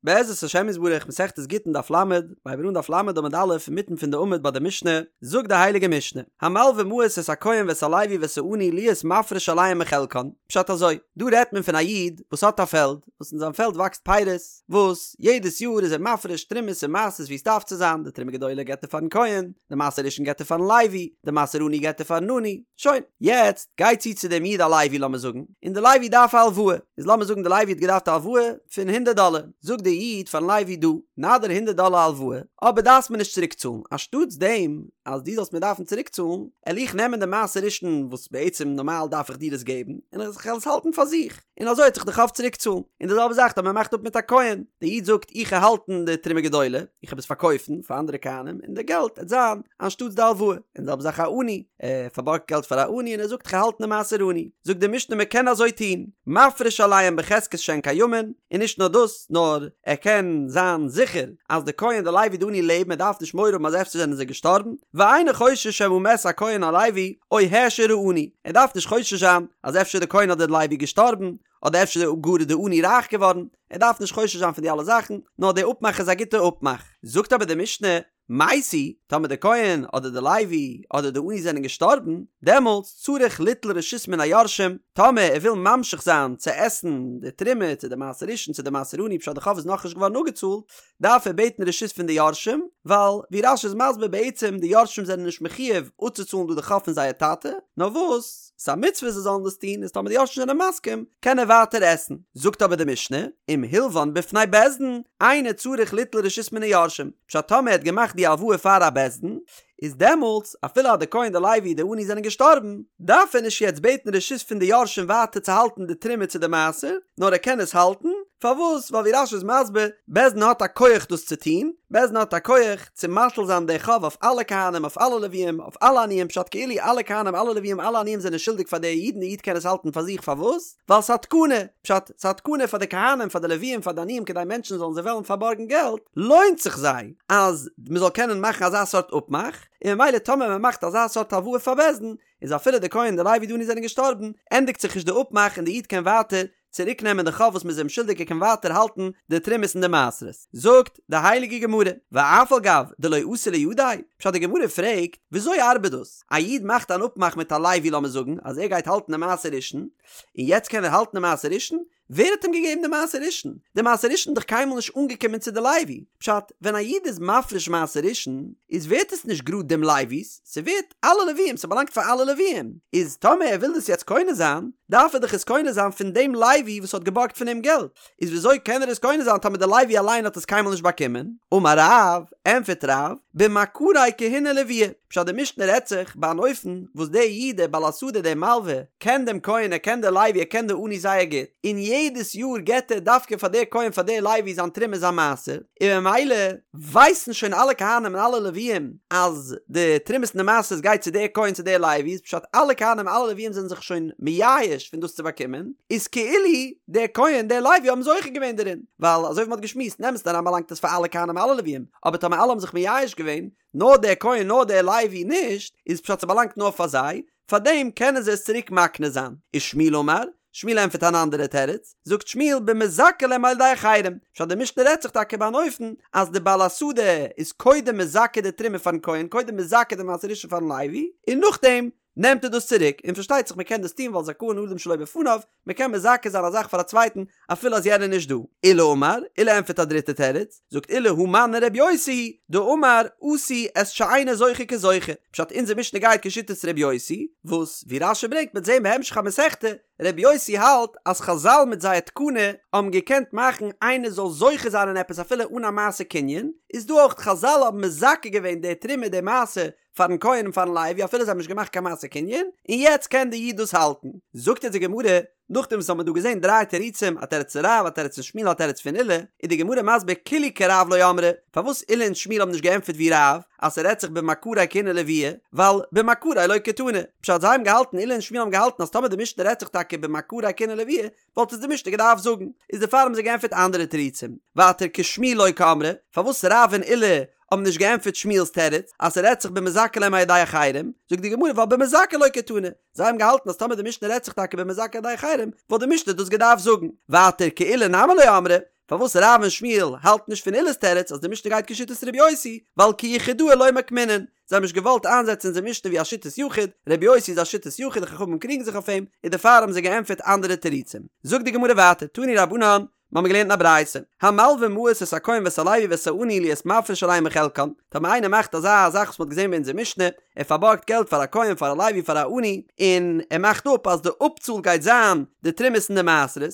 בעזרת השם יתברך מסכת גיטין דף ל', הייבן מיר אן דף ל' עמוד א' אינמיטן פון די עמוד ביי די משנה, זאגט די הייליגע משנה, המלווה מעות את הכהן ואת הלוי ואת העני להיות מפריש עליהם מחלקן, פשט אזוי, דא רעדט מען פון א איד וואס האט א פעלד, וואס אין זיין פעלד וואקסט פירות, וואס יעדעס יאר איז ער מפריש תרומות און מעשרות ווי עס דארף צו זיין, די תרומה גדולה געבט ער פארן כהן, די מעשר ראשון געבט ער פארן לוי, די מעשר עני געבט ער פארן עני, שוין, יעצט גייט צו צו דעם איד א לוי לאמיר זאגן, און די לוי דארף א הלוואה, איז לאמיר זאגן די לוי האט געדארפט א הלוואה פון הונדערט דאלער, זאגט די איד פארן לוי דא, נאדיר הונדערט דאלער הלוואה, אבער דארפסט מיר נישט צוריק צאלן, אנשטאטס דעם אז דו זאלסט מיר דארפן צוריק צאלן, על איך נעמען די מעשר ראשון וואס בעצם נארמאל דארף איך דיר עס געבן, און איך וועל עס האלטן פאר זיך, און אזוי וועט זיך די חוב צוריק צאלן, און די זעלבע זאך טאמער מען מאכט אפ מיט א כהן, די איד זאגט איך וועל האלטן די תרומה גדולה, איך וועל עס פארקויפן פאר אנדערע כהנים, און די געלט עט זיין אנשטאטס די הלוואה, און די זעלבע זאך א עני, ער פארבארגט געלט פאר א עני און ער זאגט כ'האלט די מעשר עני, זאגט די משנה מען קען אזוי טון, מפריש עליהם בחזקת שהן קיימין, און נישט נאר דאס, נאר ער קען זיין זיכער אז די כהן די לוי די עני לעבן ער דארף נישט מורא האבן אז אפשר זענען זיי געשטארבן, ואינו חושש שמא מת הכהן הלוי או העשיר העני, ער דארף נישט חושש זיין אז אפשר די כהן אדער די לוי געשטארבן, אדער אפשר גאר איז די עני רייך געווארן, ער דארף נישט חושש זיין פון די אלע זאכן, נאר די אפמאך איז א גוטע אפמאך. זאגט אבער די משנה, מתו, טאמער די כהן אדער די לוי אדער די עני זענען געשטארבן, דעמאלטס צריך ליטול רשות מן היורשים, טאמער ער וויל ממשיך זיין צו עסן די תרומה צו די מעשר ראשון צו די מעשר עני פשט די חוב איז נאכנישט געווארן אפגעצאלט, דארף ער בעטן רשות פון די יורשים, ווייל ווי רש"י איז מסביר בעצם די יורשים זענען נישט מחויב אפצוצאלן דא די חוב פון זייער טאטע, נאר וואס ס'איז א מצוה זיי זאלן דאס טון, איז טאמער די יורשים זענען מסכים קען ער ווייטער עסן. זאגט אבער די משנה, אם הלוון בפני בית דין, אינו צריך ליטול רשות מן היורשים, פשט טאמער ער האט געמאכט די הלוואה פאר א בית דין, איז דעמאלטס אפילו אז די כהן די לוי די עני זענען געשטארבן, דארף ער נישט יעצט בעטן רשות פון די יורשים ווייטער צו האלטן די תרומה צו די מעשר, נאר ער קען עס האלטן, פארוואס? ווייל ווי רש"י איז מסביר, בית דין האט א כח דאס צו טון, בית דין האט א כח צו מטיל זיין די חוב אויף אלע כהנים אויף אלע לוויים אויף אלע עניים פשט כאילו אלע כהנים אלע לוויים אלע עניים זענען שולדיג פאר די איד און די איד קען עס האלטן פאר זיך פארוואס? ווייל ס'איז א תקנה, פשט, ס'איז א תקנה פאר די כהנים, פאר די לוויים, פאר די עניים כדי מענטשן זאלן זיי וועלן פארבארגן געלט, לוינט זיך זיי אז מ'זאל קענען מאכן אזא סארט אפמאך, און ממילא טאמער מ'מאכט אזא סארט הלוואה פאר בית דין, איז אפילו די כהן די לוי די עני זענען געשטארבן, ענדיגט זיך נישט די אפמאך און די איד קען ווייטער צוריק נעמען די חוב וואס מ'איז אים שולדיג ער קען ווייטער האלטן די תרומות און די מעשרות. זאגט די הייליגע גמרא, ואף על גב דלא אתו לידיה, פשט די גמרא פרעגט, וויאזוי ארבעט דאס? א איד מאכט אן אפמאך מיט א לוי לאמיר זאגן אז ער גייט האלטן די מעשר ראשון, און יעצט קען ער האלטן די מעשר ראשון? ווער האט אים געגעבן די מעשר ראשון? די מעשר ראשון איז דאך קיינמאל נישט אנגעקומען צו די לוי. פשט, ווען א איד איז מפריש מעשר ראשון, איז ווערט עס נישט גראד דעם לוי'ס, ס'ווערט אלע לוויים, ס'באלאנגט פאר אלע לוויים. איז טאמער ער וויל דאס יעצט קונה זיין, דארף ער דאך עס קונה זיין פון דעם לוי וואס האט געבארגט פון אים געלט. איז וויאזוי קען ער עס קונה זיין טאמער די לוי אליין האט עס קיינמאל נישט באקומען? אמר רב, ענפערט רב, במכרי כהונה ולויה, פשט די משנה רעדט זיך ביי אן אופן וואס דער איד דער בעל השדה דער מלווה קען דעם כהן ער קען דער לוי ער קען די עני זייער גוט און יעדעס יאר געט ער דווקא פאר דער כהן פאר דער לוי זיין תרומה זיין מעשר און ממילא ווייסן שוין אלע כהנים און אלע לוויים אז די תרומות און די מעשרות גייט צו דער כהן צו דער לוי איז פשט אלע כהנים אלע לוויים זענען זיך שוין מייאש פון דאס צו באקומען איז כאילו דער כהן דער לוי האבן זוכה געווען דערין ווייל אזוי ווי מ'האט געשמועסט אין אמת'ן אריין באלאנגט עס פאר אלע כהנים אלע לוויים אבער טאמער אלע האבן זיך מייאש געווען נאר דער כהן נאר דער לוי נישט, איז פשט ס'באלאנגט נאר פאר זיי, פארדעם קענען זיי עס צוריק מקנה זיין. ושמואל אמר, שמואל ענטפערט אן אנדערע תירוץ, זאגט שמואל במזכה להם על ידי אחרים, פשט די משנה רעדט זיך טאקע ביי אן אופן אז די בעל השדה איז קודם מזכה די תרומה פארן כהן קודם מזכה די מעשר ראשון פארן לוי, און נאכדעם נעמט ער דאס צוריק, און פארשטייט זיך מען קען דאס טון ווייל זכאין אדם שלא בפניו, מען קען מזכה זיין א זאך פאר א צווייטן אפילו אז יענער איז נישט דא. עולא אמר, עולא ענטפערט א דריטע תירוץ, זאגט עולא הא מני ר' יוסי היא, דאמר עשו את שאינו זוכה כזוכה, פשט אונזער משנה גייט כשיטת ר' יוסי, וואס ווי רש"י ברענגט מ'עט זעהן בהמשך המסכתא, ר' יוסי האלט אז חז"ל מיט זייער תקנה האבן געקענט מאכן איינער זאל זוכה זיין אין עפעס אפילו אן א מעשה קנין, איז דא אויך חז"ל האבן מזכה געווען די תרומה די מעשר פארן כהן און פארן לוי אפילו זיי האבן נישט געמאכט קיין מעשה קנין, און יעצט קען די איד דאס האלטן. זאגט אונז די גמרא, נאכדעם וואס האבן מיר דא געזען דריי תירוצים, א תירוץ פון רב, א תירוץ פון שמואל, א תירוץ פון עולא, איז די גמרא מסביר כולהו כרב לא אמרי, פארוואס עולא און שמואל האבן נישט געענטפערט ווי רב, אז ס'רעדט זיך במכרי כהונה ולויה, ווייל במכרי לא קתני, פשט זיי האבן געהאלטן, עולא און שמואל האבן געהאלטן אז טאמער די משנה רעדט זיך טאקע במכרי כהונה ולויה, וואלט עס די משנה געדארפט זאגן, איז דערפאר האבן זיי געענטפערט אנדערע תירוצים. ווייטער כשמואל לא קאמרי, פארוואס רב און עולא האבן נישט געענטפערט שמואל'ס תירוץ, אז ס'רעדט זיך במזכה להם על ידי אחרים, זאגט די גמרא ווייל במזכה לא קתני, זיי האבן געהאלטן אז טאמער די משנה רעדט זיך טאקע במזכה על ידי אחרים, וואלט די משנה דאס געדארפט זאגן. ווייטער כעולא נמי לא אמרי, פארוואס רב און שמואל האלטן נישט פון עולא'ס תירוץ אז די משנה גייט כשיטת ר' יוסי, ווייל כיחידאה לא מוקמינן, זיי האבן נישט געוואלט איינזעצן אונזער משנה ווי א שיטת יחיד, ר' יוסי איז א שיטת יחיד די חכמים קריגן זיך אויף אים, און דערפאר האבן זיי געענטפערט אנדערע תירוצים. זאגט די גמרא ווייטער, תנו רבנן, מיר האבן געלערנט אין א ברייתא, המלווה מעות את הכהן ואת הלוי ואת העני להיות מפריש עליהם מחלקן, טאמער איינער מאכט אזא זאך וואס מען האט געזען ביי אונזער משנה, ער פארבארגט געלט פאר א כהן פאר א לוי פאר א עני, און ער מאכט אפ אז די אפצאל גייט זיין די תרומות און די מעשרות,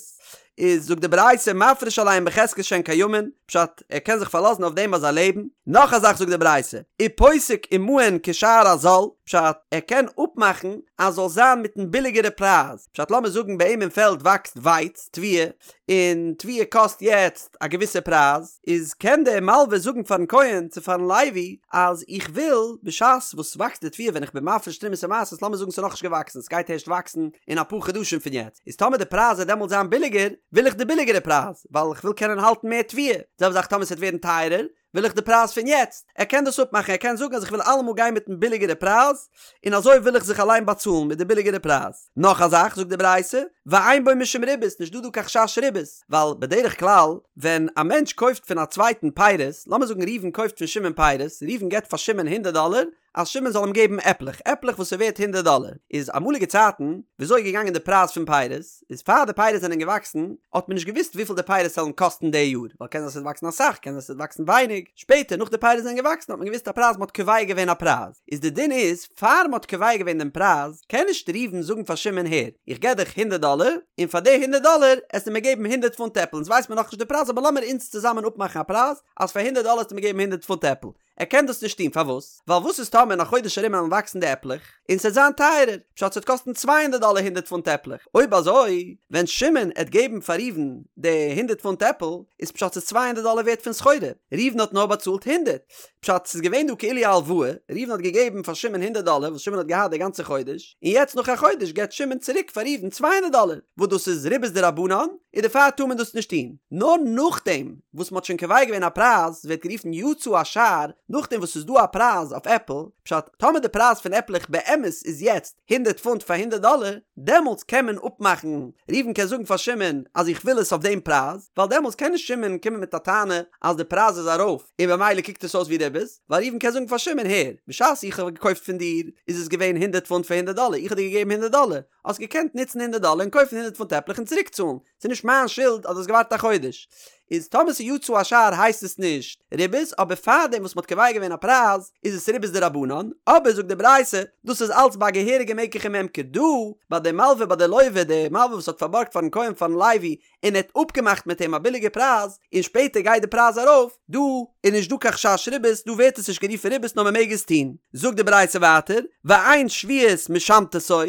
איז זאגט די ברייתא מפריש עליהם בחזקת שהן קיימין, פשט, ער קען זיך פארלאזן אויף דעם אז זיי לעבן, נאך א זאך זאגט די ברייתא, ופוסק עמהן כשער הזול, פשט, ער קען אפמאכן אז זאל זיין מיטן ביליגערע פרייז, פשט לאמיר זאגן ביי אים אין פעלד וואקסט ווייץ, תבואה, און תבואה קאסט יעצט א געוויסע פרייז, איז קען דער מלווה זאגן פארן כהן צו פארן לוי אז איך וויל בשעת וואס ס'וואקסט די תבואה ווען איך בין מפריש תרומות און מעשרות לאמיר זאגן ס'איז נאכנישט געוואקסן ס'גייט הערשט וואקסן אין אפאר חדשים פון יעצט איז טאמער די פרייז וועט דעמאלט זיין ביליגער וויל איך די ביליגערע פרייז ווייל איך וויל קענען האלטן מער תבואה, זעלבע זאך טאמער ס'וועט ווערן טייערער וויל איך די פרייז פון יעצט, ער קען דאס אפמאכן, ער קען זאגן אז איך וויל אלעמאל גיין מיטן ביליגערע פרייז, און אזוי וויל איך זיך אליין באצאלן מיט די ביליגערע פרייז. נאך א זאך, זאגט די ברייתא, ואין בו משום ריבית, נישט דא דא קיין חשש ריבית, ווייל בדרך כלל ווען א מענטש קויפט פון א צווייטן פירות, לאמיר זאגן ראובן קויפט פון שמעון פירות, ראובן געבט פאר שמעון הונדערט דאלער, אז שמעון זאל אים געבן עפלעך, עפלעך וואס איז ווערט הונדערט דאלער, איז אמאליגע צייטן, וויאזוי איז געגאנגען די פרייז פון פירות, איז פאר די פירות זענען געוואקסן, האט מען נישט געוואוסט וויפיל די פירות וועלן קאסטן די יאר, ווייל קען זיין ס'וועט וואקסן אסאך, קען זיין ס'וועט וואקסן ווייניג, שפעטער נאך די פירות זענען געוואקסן האט מען געוואוסט א פרייז, מ'האט קובע געווען א פרייז, איז די דין איז, פאר מ'האט קובע געווען דעם פרייז, קען נישט ראובן זאגן פאר שמעון הער, איך געב דיך הונדערט דאלער, און פאר די הונדערט דאלער עסטו מיר געבן הונדערט פונט עפל, אונז ווייסט מיר נאכנישט די פרייז אבער לאמיר אונז צוזאמען אפמאכן א פרייז, אז פאר הונדערט דאלער עסטו מיר געבן הונדערט פונט עפל, ער קען דאס נישט טון, פארוואס? ווייל וואס איז טאמער אין א חודש ארום וועלן וואקסן די עפלעך, און ס'עט זיין טייערער, פשט ס'עט קאסטן צוויי הונדערט דאלער הונדערט פונט עפלעך, אויב אזוי ווען שמעון עט געבן פאר ראובן די הונדערט פונט עפל, איז פשט ס'איז צוויי הונדערט דאלער ווערט פון סחורה, ראובן האט נאר באצאלט הונדערט, פשט ס'איז געווען דא כאילו א הלוואה, ראובן האט געגעבן פאר שמעון הונדערט דאלער וואס שמעון האט געהאט די גאנצע חודש, און יעצט נאך א חודש געבט שמעון צוריק פאר ראובן צוויי הונדערט דאלער, וואס דאס איז ריבית דרבנן, און דערפאר טאר מען דאס נישט טון, נאר נאכדעם. וואס מ'האט שוין קובע געווען א פרייז, ווערט גערופן יצא השער, נאכדעם וואס ס'איז דא א פרייז אויף עפל, פשט, טאמער די פרייז פון עפלעך באמת איז יעצט הונדערט פונט פאר הונדערט דאלער, דעמאלטס קען מען אפמאכן, ראובן קען זאגן פאר שמעון אז איך וויל עס אויף דעם פרייז, ווייל דעמאלטס קען נישט שמעון קומען מיט א טענה אז די פרייז איז ארויף און במילא קוקט עס אויס ווי ריבית, ווייל ראובן קען זאגן פאר שמעון הער, בשעת איך האב געקויפט פון דיר איז עס געווען הונדערט פונט פאר הונדערט דאלער, איך האב דיר געגעבן הונדערט דאלער, האסט געקענט נוצן הונדערט דאלער און קויפן הונדערט פונט עפלעך און צוריקצאלן, ס'איז נישט מיין שולד אז דו האסט געווארט א חודש. איז טאמער ס'איז יצא השער הייסט עס נישט ריבית, אבער פארדעם וואס מ'האט קובע געווען א פרייז איז עס ריבית דרבנן, אבער זאגט די ברייתא, דאס איז אלץ ביי א געהעריגע מקח וממכר, דא ביי די מלווה ביי די לווה, די מלווה וואס האט פארבארגט פארן כהן פארן לוי און ער האט אפגעמאכט מיט אים א ביליגע פרייז, און שפעטער גייט די פרייז ארויף, דא איז נישט דא קיין חשש ריבית, דא ווערט עס נישט גערופן ריבית נאר מ'מעג עס טון. זאגט די ברייתא ווייטער, ואין שביעית משמטתו,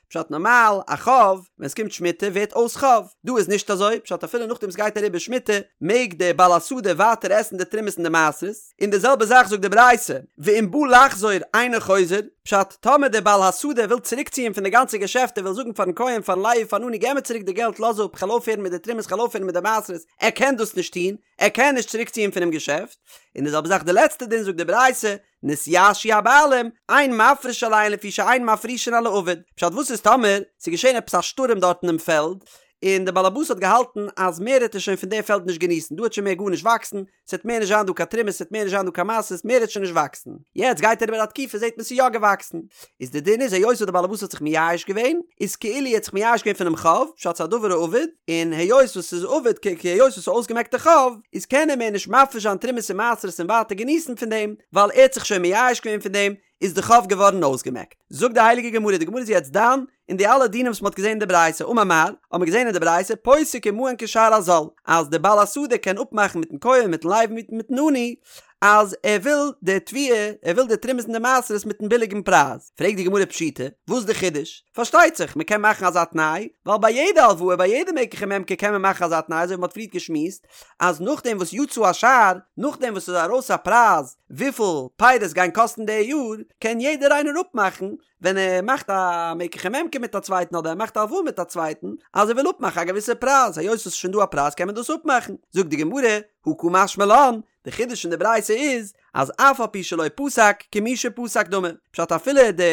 פשט נארמאל א חוב ווען עס קומט שמיטה ווערט אויס חוב, דא איז נישט אזוי, פשט אפילו נאכדעם עס גייט אריבער שמיטה מעג דער בעל השדה ווייטער עסן די תרומות און די מעשרות, און די זעלבע זאך זאגט די ברייתא, ואם בא לחזור אינו חוזר, פשט טאמער דער בעל השדה וויל צוריק ציען פון די גאנצע געשעפט ער וויל זאגן פארן כהן פארן לוי פארן עני געב מיר צוריק די געלט לאז אפ כ'על אויפהערן מיט די תרומות כ'על אויפהערן מיט די מעשרות, ער קען דאס נישט טון, ער קען נישט צוריק ציען פונעם געשעפט, און די זעלבע זאך די לעצטע דין זאגט די ברייתא, נתייאשו הבעלים, אין מפריש עליהן לפי שאין מפרישין על האבוד. פשט וואס איז טאמער ס'איז געשען עפעס א שטורעם דארט אינעם פעלד, און דער באלעבאס האט געהאלטן אז מער העט ער שוין פון די פעלד נישט געניסן, דא העט שוין מער גארנישט וואקסן, ס'העט מער נישט זיין דא קיין תרומות, ס'העט מער נישט זיין דא קיין מעשרות, מער העט שוין נישט וואקסן. יעצט גייט אריבער א תקופה זעט מען ס'איז יא געוואקסן. איז די דין איז היות וואס דער באלעבאס האט זיך מייאש געווען, איז כאילו ער האט זיך מייאש געווען פונעם חוב, פשט ס'איז א דבר האבוד, און היות וואס ס'איז אבוד כ ק היות וואס ס'איז אויסגעמעקט די חוב, איז קען ער מער נישט מפריש זיין תרומות און מעשרות און ווייטער געניסן פון דעם, ווייל ער האט זיך שוין מייאש געווען פון דעם, איז די חוב געווארן אויסגעמעקט. זאגט די הייליגע גמרא, די גמרא איז יעצט דן אין די אלע דינים וואס מ'האט געזען אין די ברייתא, אמר מר, האט מען געזען אין די ברייתא, פוסק עמהן כשער הזול, אז די בעל השדה קען אפמאכן מיטן כהן, מיטן לוי, מיטן עני, אז ער וויל די תבואה, ער וויל די תרומות און די מעשרות מיטן ביליגן פרייז. פרעגט די גמרא פשיטא, וואס איז די חידוש? פארשטייט זיך, מען קען מאכן אזא תנאי, ווייל ביי יעדע הלוואה, ביי יעדע מקח וממכר קען מען מאכן אזא תנאי, אזוי ווי מען האט פריערט געשמועסט, אז נאכדעם וואס יצא השער, נאכדעם וואס ס'איז ארויס א פרייז וויפיל פירות גייען קאסטן די יאר, קען יעדער איינער אפמאכן, ווען ער מאכט א מקח וממכר מיט א צווייטן אדער ער מאכט א הלוואה מיט א צווייטן, אז ער וויל אפמאכן א געוויסע פרייז, היות עס איז שוין דא א פרייז קען מען דאס אפמאכן. זאגט די גמרא, הא קא משמע לן, די חידוש אין די ברייתא איז, אז אף על פי שלא פסק, כמי שפסק דמי, פשט אפילו די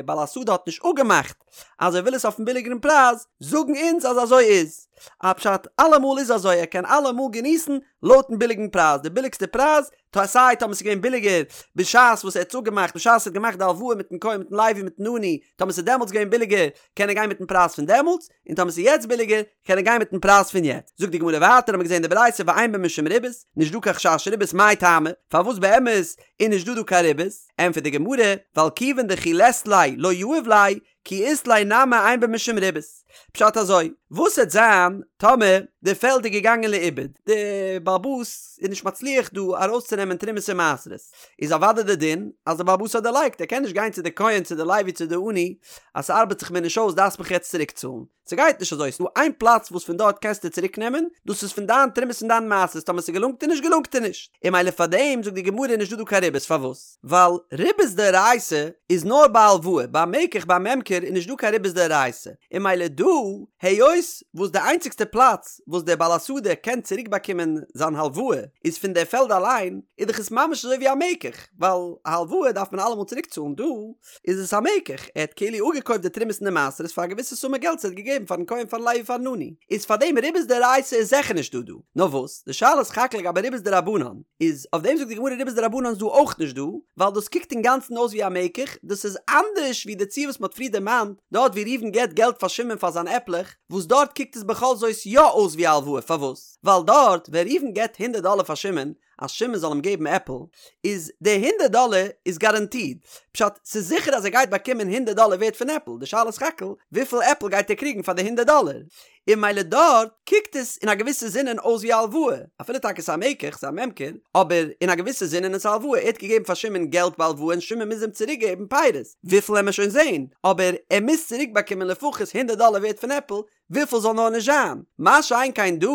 בעל השדה האט נישט אפגעמאכט אז ער וויל עס אויפן ביליגערן פרייז, זאגן אונז אז אזוי איז. א פשט אלעמאל איז אזוי ער קען אלעמאל געניסן לויטן ביליגן פרייז, די ביליגסטע פרייז, טא סיי טאמער ס'איז געווען ביליגער בשעת וואס ער האט עס אפגעמאכט בשעת ער האט געמאכט די הלוואה מיטן כהן מיטן לוי מיטן עני, טאמער ס'איז דעמאלטס געווען ביליגער קען ער גיין מיטן פרייז פון דעמאלטס, און טאמער ס'איז יעצט ביליגער קען ער גיין מיטן פרייז פון יעצט. זאגט די גמרא ווייטער האט מען געזען די ברייתא ואין בו משום ריבית, נישט דא קיין חשש ריבית מאי טעמא, פארוואס באמת איז נישט דא דא קיין ריבית? ענטפערט די גמרא, ווייל כיוון דכי לית ליה לא יהיב ליה, כי אית ליה נמי אין בו משום ריבית. פשט אזוי, וואס העט זיין טאמער די פעלד איז געגאנגען לאיבוד, די בעל הבית איז נישט מצליח דא ארויסצונעמען תרומות און מעשרות, איז אוודאי די דין אז די בעל הבית האט דערלייגט, ער קען נישט גיין צו די כהן צו די לוי צו די עני אז ס'ארבעט זיך מיר נישט אויס דארפסט מיך יעצט צוריקצאלן, ס'גייט נישט אזוי, ס'דא איין פלאץ וואס פון דארט קענסטו צוריק נעמען, דאס איז פון דיין תרומות און דיין מעשרות, טאמער ס'געלונגט דיר נישט געלונגט דיר נישט, און ממילא פארדעם זאגט די גמרא איז נישט דא דא קיין ריבית, פארוואס? ווייל ריבית דאורייתא איז נאר ביי הלוואה, ביי מקח ביי ממכר איז נישט דא קיין ריבית דאורייתא, און ממילא דא, היות וואס די איינציגסטע פלאץ וואס דער בעל השדה קען צוריק באקומען זיין הלוואה איז פון דער פעלד אליין, איז דאך עס ממש אזוי ווי א מקח, ווייל א הלוואה דארף מען אלעמאל צוריק צאלן, דא איז עס א מקח, ער האט כאילו אפגעקויפט די תרומות און די מעשרות פאר א געוויסע סומע געלט וואס ער האט געגעבן פארן כהן פארן לוי פארן עני, איז פאר דעם ריבית דאורייתא איז זיכער נישט דא דא, נאר וואס, די שאלה איז סך הכל לגבי ריבית דרבנן, איז אויף דעם זאגט די גמרא ריבית דרבנן איז דא אויך נישט דא, ווייל דאס קוקט אינגאנצן אויס ווי א מקח, דאס איז אנדערש ווי די ציור וואס מען האט פריער דערמאנט, דארט ווי ראובן געבט געלט פאר שמעון פאר זיין עפלעך, וואס דארט קוקט עס בכל זאת יא אויס ווי א הלוואה, פארוואס? ווייל דארט ווען ראובן געבט הונדערט דאלער פאר שמעון, אז שמעון זאל אים געבן עפל, איז די הונדערט דאלער איז גאראנטיד, פשט, ס'איז זיכער אז ער גייט באקומען הונדערט דאלער ווערט פון עפל, די שאלה איז סך הכל וויפיל עפל גייט ער קריגן פאר די הונדערט דאלער, און ממילא דארט קוקט עס אין א געוויסע זינען אויס ווי א הלוואה, אפילו טאקע ס'איז א מקח, ס'איז א ממכר, אבער אין א געוויסע זינען איז עס א הלוואה, ער האט געגעבן פאר שמעון געלט בהלוואה און שמעון מוז אים צוריק געבן פירות, וויפיל עמער שוין זעהן, אבער ער מוז צוריק באקומען לפחות הונדערט דאלער ווערט פון עפל, וויפיל זאל נאר נישט זיין, מה שאין כן דא,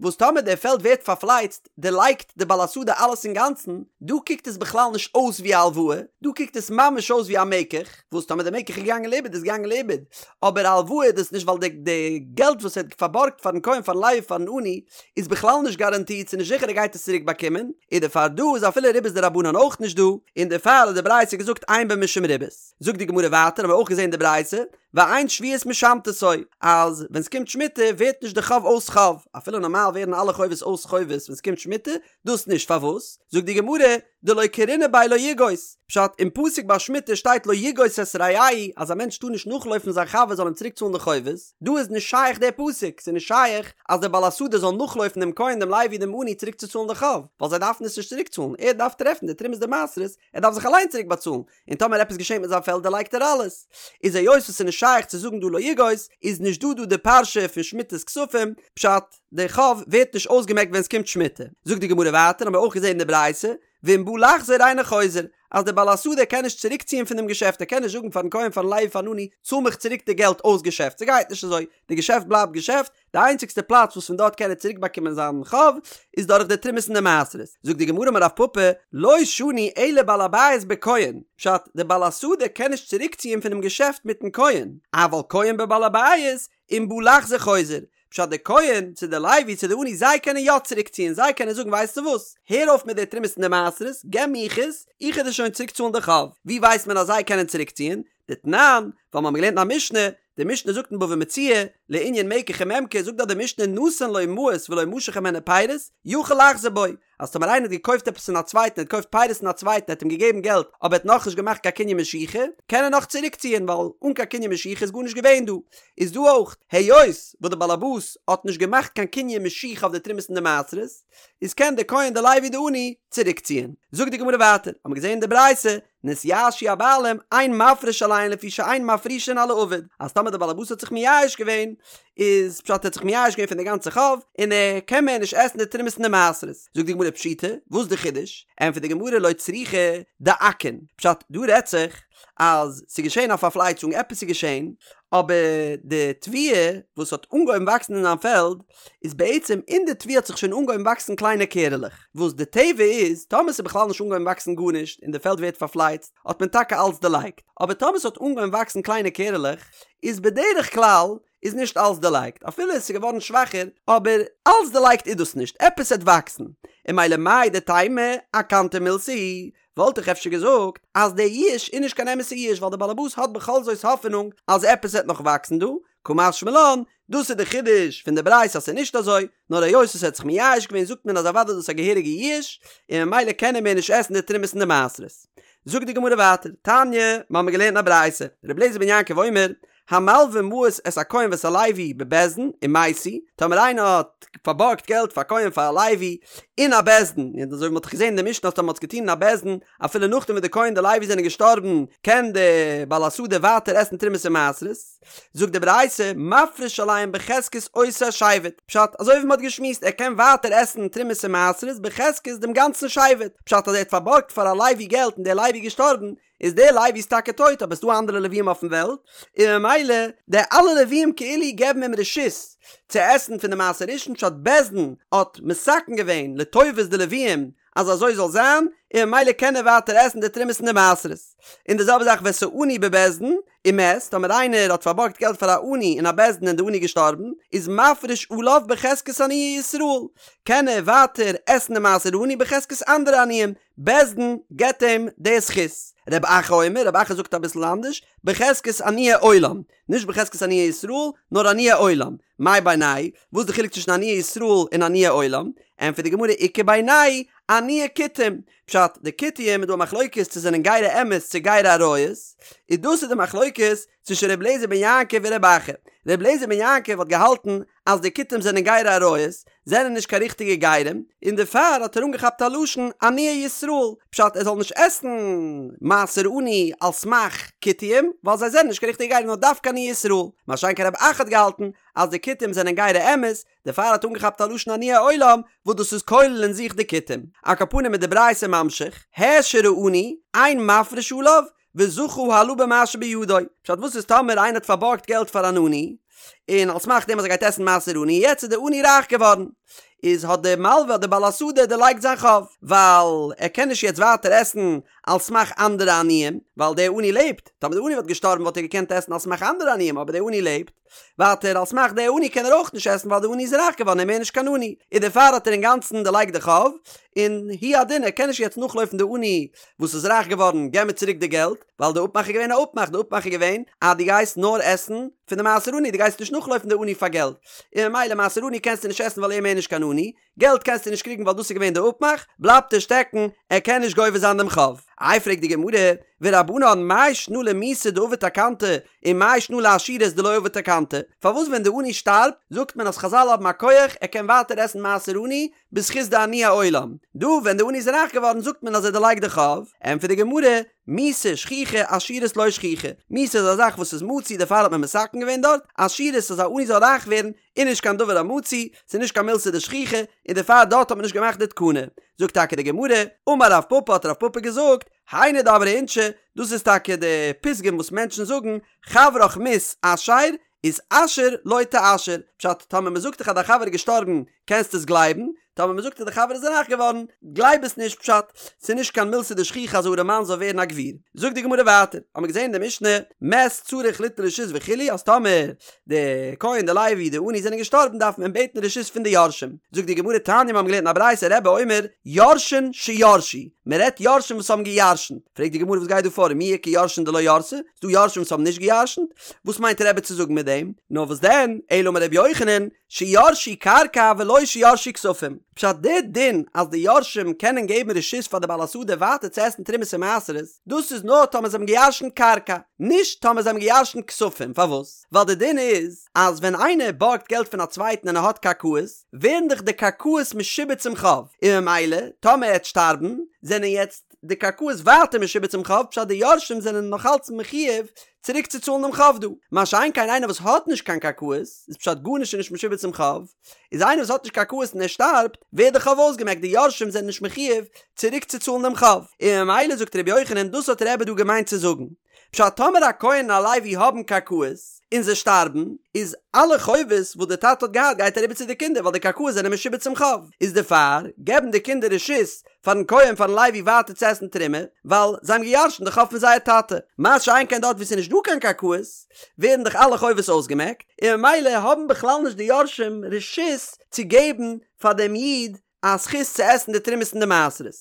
וואס טאמער דער פעלד ווערט פארפלייצט, דערלייגט די בעל השדה אלעס אינגאנצן, דא קוקט עס בכלל נישט אויס ווי א הלוואה, דא קוקט עס ממש אויס ווי א מקח, וואס טאמער די מקח איז געגאנגען לאיבוד איז געגאנגען לאיבוד, אבער א הלוואה איז דאס נישט ווייל די די געלט וואס ער האט פארבארגט פארן כהן פארן לוי פארן עני איז בכלל נישט גאראנטירט ס'איז נישט זיכער ער גייט עס צוריק באקומען, און דערפאר דא איז אפילו ריבית דרבנן אויך נישט דא, און דערפאר האט די ברייתא געזאגט אין בו משום ריבית. זאגט די גמרא ווייטער האבן מיר אויך געזען די ברייתא, ואין שביעית משמטתו, אז ווען ס'קומט שמיטה ווערט נישט די חוב אויס חוב, אפילו נארמאל ווערן אלע חובות אויס חובות ווען ס'קומט שמיטה, דאס נישט, פארוואס? זאגט די גמרא, דלא קרינא ביה לא יגוש, פשט, אין פסוק ביי שמיטה שטייט לא יגוש את רעהו אז א מענטש טאר נישט נאכלויפן זיין חבר זאל אים צוריק צאלן די חובות, דא איז נישט שייך דער פסוק, ס'איז נישט שייך אז דער בעל השדה זאל נאכלויפן דעם כהן דעם לוי דעם עני צוריק צו צאלן די חוב, ווייל זיי דארפן עס נישט צוריק צאלן, ער דארף טרעפן די תרומות די מעשרות, ער דארף זיך אליין צוריק באצאלן, און טאמער עפעס געשענט מיט זיין פעלד דערלייגט ער אלעס. איז היות וואס ס'איז נישט שייך צו זאגן דא לא יגוש, איז נישט דא דא די פרשה פון שמיטת כספים, פשט, די חוב ווערט נישט אויסגעמעקט ווען ס'קומט שמיטה. זאגט די גמרא ווייטער, האבן מיר אויך געזען אין די ברייתא, ואם בא לחזור אינו חוזר, אז דער בעל השדה קען נישט צוריקציען פון דעם געשעפט, ער קען נישט זאגן פארן כהן פארן לוי פארן עני, צאל מיך צוריק די געלט אויס געשעפט, ס'גייט נישט אזוי, די געשעפט בלייבט געשעפט, די איינציגסטע פלאץ וואס פון דארט קען ער צוריק באקומען זיין חוב איז דורך די תרומות און די מעשרות. זאגט די גמרא אמר רב פפא, לא שנו אלא בעל הבית בכהן, פשט, די בעל השדה קען נישט צוריק ציען פונעם געשעפט מיטן כהן, אבל כהן בבעל הבית, אם בא לחזור חוזר, פשט די כהן, צו די לוי צו די עני זיי קענען יא צוריק ציען, זיי קענען זאגן ווייסטו וואס, הער אויף מיט די תרומות און די מעשרות, געב מיך עס, איך וועל דיר שוין צוריק צאלן די חוב. ווי ווייסט מען אז זיי קענען צוריק ציען? דתנן, ווייל מיר האבן געלערנט אין א משנה, די משנה זאגט אין בבא מציעא, לענין מקח וממכר, זאגט דארט די משנה נתן לו מעות ולא משך הימנו פירות, יכול לחזור בו, אז טאמער איינער האט געקויפט עפעס פון א צווייטן, ער האט געקויפט פירות פון א צווייטן, ער האט אים געגעבן געלט, אבער ער האט נאכנישט געמאכט קיין קנין משיכה, קען ער נאך צוריקציען, ווייל אן קיין קנין משיכה איז גארנישט געווען דא. איז דא אויך, היות וואס די בעל הבית האט נישט געמאכט קיין קנין משיכה אויף די תרומות און די מעשרות, איז קען די כהן די לוי די עני צוריקציען. זאגט די גמרא ווייטער, האבן מיר געזען אין די ברייתא, נתייאשו הבעלים, אין מפריש עליהן לפי שאין מפרישין על האבוד, אז טאמער דער בעל הבית האט זיך מייאש געווען, איז פשט ער האט זיך מייאש געווען פון די גאנצע חוב, און ער קען מער נישט עסן די תרומות און די מעשרות. זאגט די גמרא פשיטא, וואס די חידוש? ענטפערט די גמרא לא צריכא דאכין, פשט, דא רעדט זיך אז ס'איז געשען א פארפלייצונג, עפעס איז געשען, אבער די תבואה וואס האט אנגעהויבן וואקסן אין זיין פעלד, איז בעצם אין די תבואה האט זיך שוין אנגעהויבן וואקסן קליינע קערעלעך, וואס די טבע איז, טאמער ס'איז בכלל נישט אנגעהויבן וואקסן גארנישט און די פעלד ווערט פארפלייצט, האט מען טאקע אלץ דערלייגט, אבער טאמער ס'האט אנגעהויבן וואקסן קליינע קערעלעך, איז בדרך כלל איז נישט אלץ דערלייגט, אפילו עס איז געווארן שוואכער, אבער אלץ דערלייגט איז דאס נישט, עפעס עט וואקסן, און ממילא מהו דתימא אכנתא מילתא היא, וואלט איך אפשר געזאגט אז דער יאוש איז נישט קיין אמת'ע יאוש ווייל דער בעל הבית האט בכל זאת האפענונג אז עפעס עט נאך וואקסן דא, קא משמע לן. דאס איז די חידוש פון די ברייתא אז ס'איז נישט אזוי, נאר היות עס האט זיך מייאש געווען זאגט מען אז אוודאי איז דאס א געהעריגע ייאוש, און ממילא קען ער מער נישט עסן די תרומות און די מעשרות. זאגט די גמרא ווייטער, תניא, מ'האמיר געלערנט אין א ברייתא, רבי אליעזר בן יעקב אומר, המלווה מעות את הכהן ואת הלוי בבית דין ומתו, טאמער איינער האט פארבארגט געלט פאר א כהן פאר א לוי אין א בית דין, און אזוי ווי מ'האט דאך געזען אין די משנה אז טאמער מ'האט עס געטון אין א בית דין אפילו נאכדעם וואס די כהן די לוי זענען געשטארבן קען די בעל השדה ווייטער עסן תרומות און מעשרות, זאגט די ברייתא, מפריש עליהם בחזקת אותו שבט, פשט, אזוי ווי מ'האט געשמועסט ער קען ווייטער עסן תרומות און מעשרות בחזקת דעם גאנצן שבט, פשט אז ער האט פארבארגט פאר א לוי געלט און דער לוי איז געשטארבן, איז דער לוי איז טאקע טויט אבער ס'דא אנדערע לווים אויפן וועלט, און ממילא די אלע לווים כאילו געבן אים רשות צו עסן פון די מעשר ראשון פשט בית דין האט מתקן געווען לטובת די לווים אז אזוי זאל זיין, און ממילא קען ער ווייטער עסן די תרומות און די מעשרות. און די זעלבע זאך ואת העני בבית דין ומת, טאמער איינער האט פארבארגט געלט פאר א עני אין א בית דין און די עני איז געשטארבן, איז מפריש עליו בחזקת עניי ישראל, קען ער ווייטער עסן די מעשר עני בחזקת אנדערע עניים, בית דין געבט אים די זכות. רב אחא אומר, רב אחא זאגט אביסל אנדערש, בחזקת עניי עולם, נישט בחזקת עניי ישראל, נאר עניי עולם. מאי בינייהו וואס איז די חילוק צווישן עניי ישראל און עניי עולם? ענטפערט די גמרא איכא בינייהו עניי כותים. פשט, די כותים איז דא א מחלוקת צו זענען גירי אמת צו גירי אריות, און דאס איז די מחלוקת צווישן ר' אליעזר בן יעקב און רב אחא. ר' אליעזר בן יעקב האט געהאלטן אז די כותים זענען גירי אריות, זענען נישט קיין ריכטיגע גרים, און דערפאר האט ער אנגעכאפט א לשון עניי ישראל, פשט ער זאל נישט עסן מעשר עני על סמך כותים, ווייל זיי זענען נישט קיין ריכטיגע גרים נאר דווקא עניי ישראל, מה שאין כן רב אחא האט געהאלטן אז די כותים זענען גירי אמת, דערפאר האט אנגעכאפט א לשון עניי עולם וואס דאס איז כולל אין זיך די כותים. על כל פנים איז די ברייתא ממשיך, העשיר העני, אין מפריש עליו, וזכה הלה במה שבידו. פשט וואס איז טאמער איינער האט פארבארגט געלט פאר אן עני, און על סמך דעם אז ער גייט עסן מעשר עני, יעצט איז דער עני רייך געווארן, איז האט דער מלווה דער בעל השדה דערלייגט זיין חוב, ווייל ער קען נישט יעצט ווייטער עסן על סמך אנדערע עניים, ווייל דער עני לעבט, טאמער דער עני וואלט געשטארבן וואלט ער געקענט עסן על סמך אנדערע עניים, אבער דער עני לעבט. ווייטער על סמך די עני קען ער אויך נישט עסן ווייל די עני איז רייך געווארן און מער נישט קיין עני, און דערפאר האט ער אינגאנצן דערלייגט די חוב, און הוא הדין ער קען נישט יעצט נאכלויפן די עני וואס איז רייך געווארן געב מיר צוריק די געלט, ווייל די אפמאך איז געווען א אפמאך, די אפמאך איז געווען אז דו גייסט נאר עסן פון די מעשר עני דו גייסט נישט נאכלויפן די עני פאר געלט, און ממילא מעשר עני קענסטו נישט עסן ווייל ער איז מער נישט קיין עני, געלט קענסטו נישט קריגן ווייל דאס איז געווען די אפמאך, בלייבט ער שטעקן, ער קען נישט גובה זיין דעם חוב. איי פרעגט די גמרא, ורבנן מאי שנא למיתה דעבד תקנתא ומאי שנא לעשירות דלא עבד תקנתא, פארוואס ווען די עני שטארבט זאגט מען אז חזל האבן א כח ער קען ווייטער עסן מעשר עני בזכות די עניי עולם, דא ווען די עני איז רייך געווארן זאגט מען אז ער דערלייגט די חוב, ענטפערט די גמרא, מיתה שכיחא עשירות לא שכיחא, מיתה איז א זאך וואס איז מצוי דערפאר האט מען מתקן געווען דארט, עשירות אז א עני זאל רייך ווערן איז נישט קיין דבר המצוי, ס'איז נישט קיין מילתא דשכיחא, און דערפאר דארט האט מען נישט געמאכט די תקנה. זאגט טאקע די גמרא, אמר רב פפא האט רב פפא געזאגט, היינו דאמרי אינשי, דאס איז טאקע די פתגם וואס מענטשן זאגן, חברך מית אשר, איתעשר לא תיעשר, פשט, טאמער מ'זאגט דיך אז דיין חבר איז געשטארבן, קענסטו עס גלייבן, טאמער מ'זאגט אז די חבר איז רייך געווארן, גלייב עס נישט, פשט, ס'איז נישט קיין מילתא דשכיחא אז א ארעמאן זאל ווערן א גביר. זאגט די גמרא ווייטער, האמיר געזען אין די משנה, מת צריך ליטול רשות וכו', אז טאמער די כהן די לוי די עני זענען געשטארבן דארף מען בעטן רשות פון די יורשים. זאגט די גמרא תניא מיר האבן געלערנט אין א ברייתא רבי אומר יורשין שירשו, מען רעדט יורשים וואס האבן געירשנט, פרעגט די גמרא וואס גייט דא פאר ומי איכא יורשין דלא ירתי, ס'דא יורשים וואס האבן נישט געירשנט? וואס מיינט רבי צו זאגן מיט דעם? נאר וואס דען, אלא אמר רבי יוחנן, שירשו קרקע ולא שירשו כספים, פשט די דין אז די יורשים קענען געבן רשות פאר די בעל השדה ווייטער צו עסן תרומות און מעשרות, דאס איז נאר טאמער זיי האבן געירשנט קרקע, נישט טאמער זיי האבן געירשנט כספים, פארוואס? ווייל די דין איז אז ווען איינער בארגט געלט פון א צווייטן און ער האט קרקעות, ווערן דאך די קרקעות משועבד צום חוב, און ממילא טאמער ער וועט שטארבן, זענען יעצט די קרקעות ווייטער משועבד צום חוב, פשט די יורשים זענען נאכאלץ מחויב צוריק צו צאלן דעם חוב דא. מה שאין כן איינער וואס האט נישט קיין קרקעות, איז פשט גארנישט איז נישט משועבד צום חוב, איז איינער וואס האט נישט קרקעות און ער שטארבט, ווערט די חוב אויסגעמעקט, די יורשים זענען נישט מחויב צוריק צו צאלן דעם חוב. און ממילא זאגט ר' יוחנן דאס האט רבי דא געמיינט צו זאגן. פשט טאמער א כהן און א לוי האבן קרקעות, און זיי שטארבן, איז אלע חובות וואס די טאטע האט געהאט גייט אריבער צו די קינדער ווייל די קרקעות זענען משועבד צום חוב, איז דערפאר געבן די קינדער רשות פארן כהן פארן לוי ווייטער צו עסן תרומה, ווייל זיי האבן געירשנט די חוב פון זייער טאטע. מה שאין כן דארט וואו ס'איז נישט דא קיין קרקעות, ווערן דאך אלע חובות אויסגעמעקט, און ממילא האבן בכלל נישט די יורשים רשות צו געבן פאר דעם איד. א זכות צו עסן די תרומות און די מעשרות.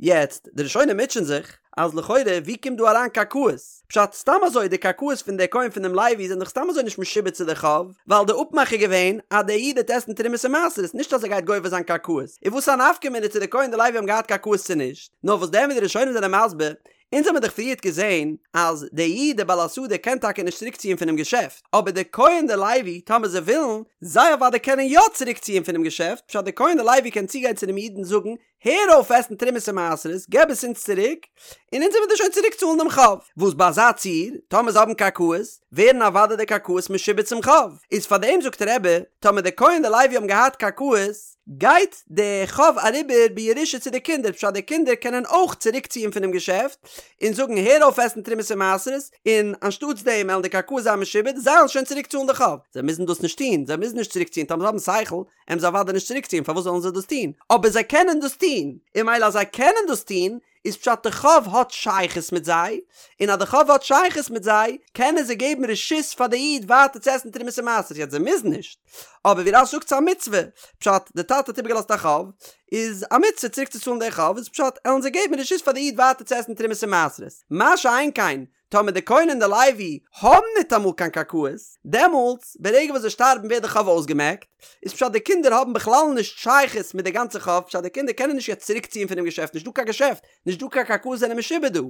יעצט, די ראשונים מוטשען זיך, אז לכאורה ווי קומט דא אריין קרקעות? פשט, סתם אזוי די קרקעות פון די כהן פון דעם לוי זענען דאך סתם אזוי נישט משועבד צו די חוב, ווייל די אפמאך איז געווען אז דער איד וועט עסן תרומות און מעשרות, נישט אז ער גייט גובה זיין קרקעות. איז וואס א נפקא מינה צו די כהן און די לוי האבן געהאט קרקעות צו נישט? נאר וואס דען ווי די ראשונים זענען מסביר, אונז האמיר דאך פריערט געזען אז דער איד דער בעל השדה קען טאקע נישט צוריק ציען פונעם געשעפט, אבער דער כהן און דער לוי טאמער זיי ווילן, זיי אוודאי קענען יא צוריק ציען פונעם געשעפט, פשט דער כהן און דער לוי קען צוגיין צו דעם איד און זאגן, הער אויף עסן תרומות און מעשרות, געב עס אונז צוריק, און אונז וועלן דיר שוין צוריק צאלן דעם חוב. וואס ביי אזא ציור, טאמער זיי האבן קרקעות, ווערן אוודאי די קרקעות משועבד צום חוב. איז פארדעם זאגט רבי, טאמער דער כהן און דער לוי האבן געהאט קרקעות, גייט די חוב אריבער בירושה צו די קינדער, פשט די קינדער קענען אויך צוריק ציען פונעם געשעפט און זאגן הער אויף עסן תרומות און מעשרות, און אנשטאטס דעם וועלן די קרקעות זיין משועבד, זיי וועלן שוין צוריק צאלן די חוב. זיי מוזן דאס נישט טון, זיי מוזן נישט צוריק ציען, טאמער זיי האבן שכל, וועלן זיי אוודאי נישט צוריק ציען, פארוואס זאלן זיי דאס טון? אבער זיי קענען דאס טון, און ממילא אז זיי קענען דאס טון, איז פשט די חוב האט שייכות מיט זיי, און אז די חוב האט שייכות מיט זיי, קענען זיי געבן רשות פאר די איד ווייטער צו עסן תרומות און מעשרות, יעצט זיי מוזן נישט, אבער ווי רש"י זאגט ס'איז א מצוה, פשט די טאטע האט איבערגעלאזט א חוב, איז א מצוה צוריק צו צאלן די חוב, איז פשט עלן זיי געבן רשות פאר די איד ווייטער צו עסן תרומות און מעשרות, מה שאין כן טאמער די כהן און די לוי האבן ניטאמאל קיין קרקעות, דעמאלטס ברגע וואס זיי שטארבן ווערט די חוב אויסגעמעקט, איז פשט די קינדער האבן בכלל נישט שייכות מיט די גאנצע חוב, פשט די קינדער קענען נישט יעצט צוריק ציען פונעם געשעפט, נישט דא קיין געשעפט, נישט דא קיין קרקעות זענען משועבד דא,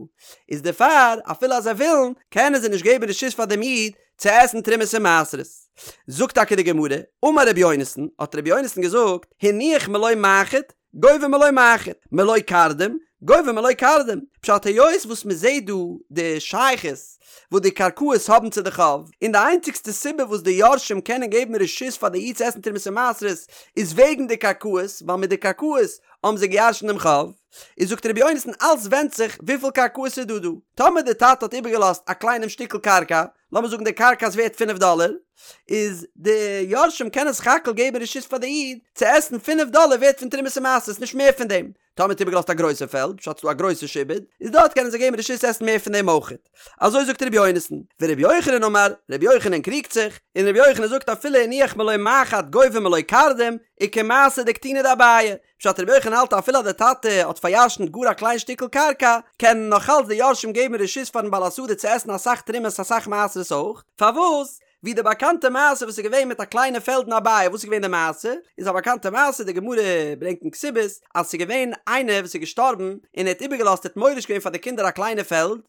איז דערפאר אפילו אז זיי ווילן, קענען זיי נישט געבן רשות פאר דעם איד צו עסן תרומות און מעשרות. זאגט טאקע די גמרא, אמר רבי יונתן, האט רבי יונתן געזאגט, הניח מלא מחט, גובה מלא מחט, מלא קרדום, גובה מלא קרדום. פשט היות וואס מען זעט דא די שייכות וואס די קרקעות האבן צו די חוב, און די איינציגסטע סיבה וואס די יורשים קענען געבן רשות פאר די איד צו עסן תרומות און מעשרות איז וועגן די קרקעות, ווייל מיט די קרקעות האבן זיי געירשנט דעם חוב. איז זאגט רבי יונתן אלס ווענדט זיך וויפיל קרקעות איז דא דא. טאמער די טאטע האט איבערגעלאזט א קליינעם שטיקל קרקע, לאמיר זאגן די קרקע איז ווערט פינף דאלער, איז די יורשים קענען סך הכל געבן רשות פאר די איד צו עסן פינף דאלער ווערט פון תרומות און מעשרות נישט מער פון דעם, טאמער האט איבערגעלאזט א גרויסע פעלד, פשט ס'דא א גרויסע שעבוד, איז דארט קענען זיי געבן רשות צו עסן מער פון דעם אויכעט. אזוי זאגט ר' יונתן. ור' יוחנן אמר, ר' יוחנן קריגט זיך, און ר' יוחנן זאגט אפילו הניח מלא מחט גובה מלא קרדום, וכמעשה דקטינא דאביי, פשט רבי יוחנן האלט אפילו אז די טאטע האט פאריארשנט גאר א קליין שטיקל קרקע, קענען נאך אלץ די יורשים געבן רשות פארן בעל השדה צו עסן אסאך תרומות אסאך מעשרות אויך, פארוואס? ווי די באקאנטע מעשה וואס איז געווען מיט א קליינע פעלד אין אביי, וואס איז געווען די מעשה? איז א באקאנטע מעשה, די גמרא ברענגט אין כתובות, אז ס'איז געווען איינער וואס איז געשטארבן און ער האט איבערגעלאזט ער האט מוריש געווען פאר די קינדער א קליינע פעלד,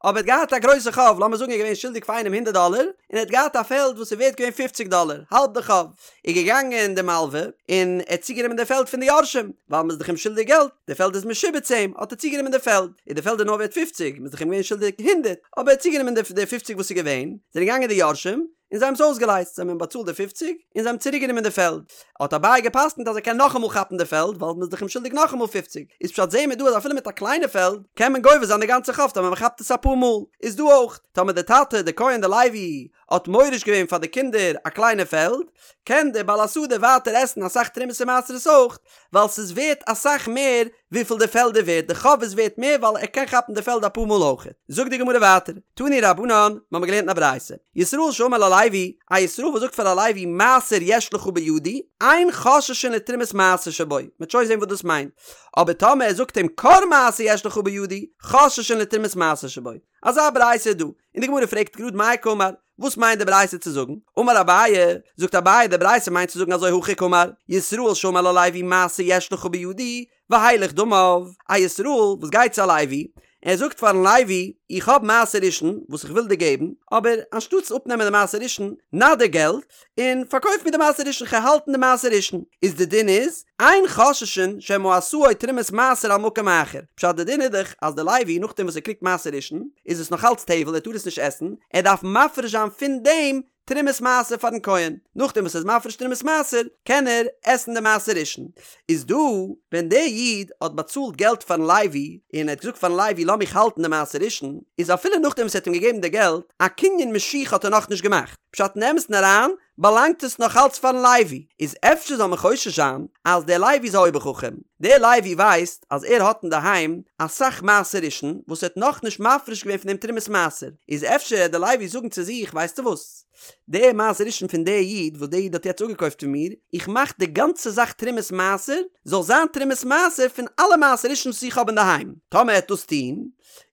אבער ער האט געהאט א גרויסע חוב, לאמיר זאגן ער איז געווען שולדיג פאר איינעם הונדערט דאלער, און ער האט געהאט א פעלד וואס איז ווערט געווען פופציג דאלער, האלב די חוב, איז געגאנגען די מלווה, און ער האט צוגענומען די פעלד פון די יורשים, ווייל מ'איז דאך אים שולדיג געלט, די פעלד איז משועבד צו אים, האט ער צוגענומען די פעלד, און די פעלד איז נאר ווערט פופציג, מ'איז דאך אים געווען שולדיג הונדערט, אבער ער האט צוגענומען די פופציג וואס איז געווען, זענען געגאנגען די יורשים, און זיי האבן עס אויסגעלייזט, זיי האבן אים באצאלט די פופציג, און זיי האבן צוריק גענומען די פעלד. האט אביי געפסקנט אז ער קען נאכאמאל כאפן די פעלד, ווייל מ'איז דאך אים שולדיג נאכאמאל פופציג. איז פשט זעהן מיר דא אז אפילו מיט א קליינע פעלד, קען מען גובה זיין די גאנצע חוב טאמער מ'כאפט עס אפאר מאל. איז דא אויך, טאמער די טאטע, די כהן די לוי, האט מוריש געווען פאר די קינדער א קליינע פעלד, קען דער בעל השדה ווייטער עסן אסאך תרומות און מעשרות אויך, ווייל ס'איז ווערט אסאך מער וויפיל די פעלד איז ווערט, די חוב איז ווערט מער ווייל ער קען כאפן די פעלד אפאר מאל אויך. זאגט די גמרא ווייטער, תנו רבנן, מ'האמיר געלערנט אין א ברייתא, ישראל שאמר ללוי, א ישראל וואס זאגט פאר א לוי מעשר יש לך בידי, אין חוששין לתרומת מעשר שבו, מ'וועט שוין זען וואס דאס מיינט, אבער טאמער ער זאגט אים כור מעשר יש לך בידי, חוששין לתרומת מעשר שבו. אזא ברייתא איז דא, און די גמרא פרעגט גראד מאי קאמר, וואס מיינט די ברייתא צו זאגן? אמר אביי, זאגט אביי די ברייתא מיינט צו זאגן אזוי הכי קאמר, ישראל שאמר ללוי מעשר יש לך בידי, והילך דמיו, א ישראל וואס גייט צו א לוי, ער זאגט פארן לוי, איך האב מעשר ראשון וואס איך וויל דיר געבן, אבער אנשטאטס אפנעמען די מעשר ראשון, נא דיר געלט, און פארקויף מיר די מעשר ראשון כ'על האלטן די מעשר ראשון, איז די דין איז, אין חוששין שמא עשאו תרומת מעשר על מקום אחר, פשט די דין איז דאך אז די לוי נאכדעם וואס ער קריגט מעשר ראשון איז עס נאך אלץ טבל ער טאר עס נישט עסן, ער דארף מפריש זיין פון דעם תרומת מעשר פארן כהן, נאכדעם וואס ער איז מפריש תרומת מעשר קען ער עסן די מעשר ראשון, איז דא ווען דער איד האט באצאלט געלט פארן לוי און ער האט געזאגט פארן לוי לאז מיך האלטן די מעשר ראשון, איז אפילו נאכדעם וואס ער האט אים געגעבן די געלט, א קנין משיכה האט ער נאכנישט געמאכט. פשט אין אמת'ן אריין באלאנגט עס נאך אלץ פארן לוי, איז אפשר זאל מען חושש זיין אז דער לוי איז א אויבער חכם, דער לוי ווייסט אז ער האט אינדערהיים אסאך מעשר ראשון וואס ער האט נאכנישט מפריש געווען פון דעם תרומת מעשר, איז אפשר העט דער לוי זאגן צו זיך ווייסטו וואס? די מעשר ראשון פון די איד וואס די איד האט יעצט אפגעקויפט פון מיר, איך מאך די גאנצע זאך תרומת מעשר, זאל זיין תרומת מעשר פון אלע מעשר ראשון וואס איך האב אינדערהיים. טאמער ער העט דאס טון,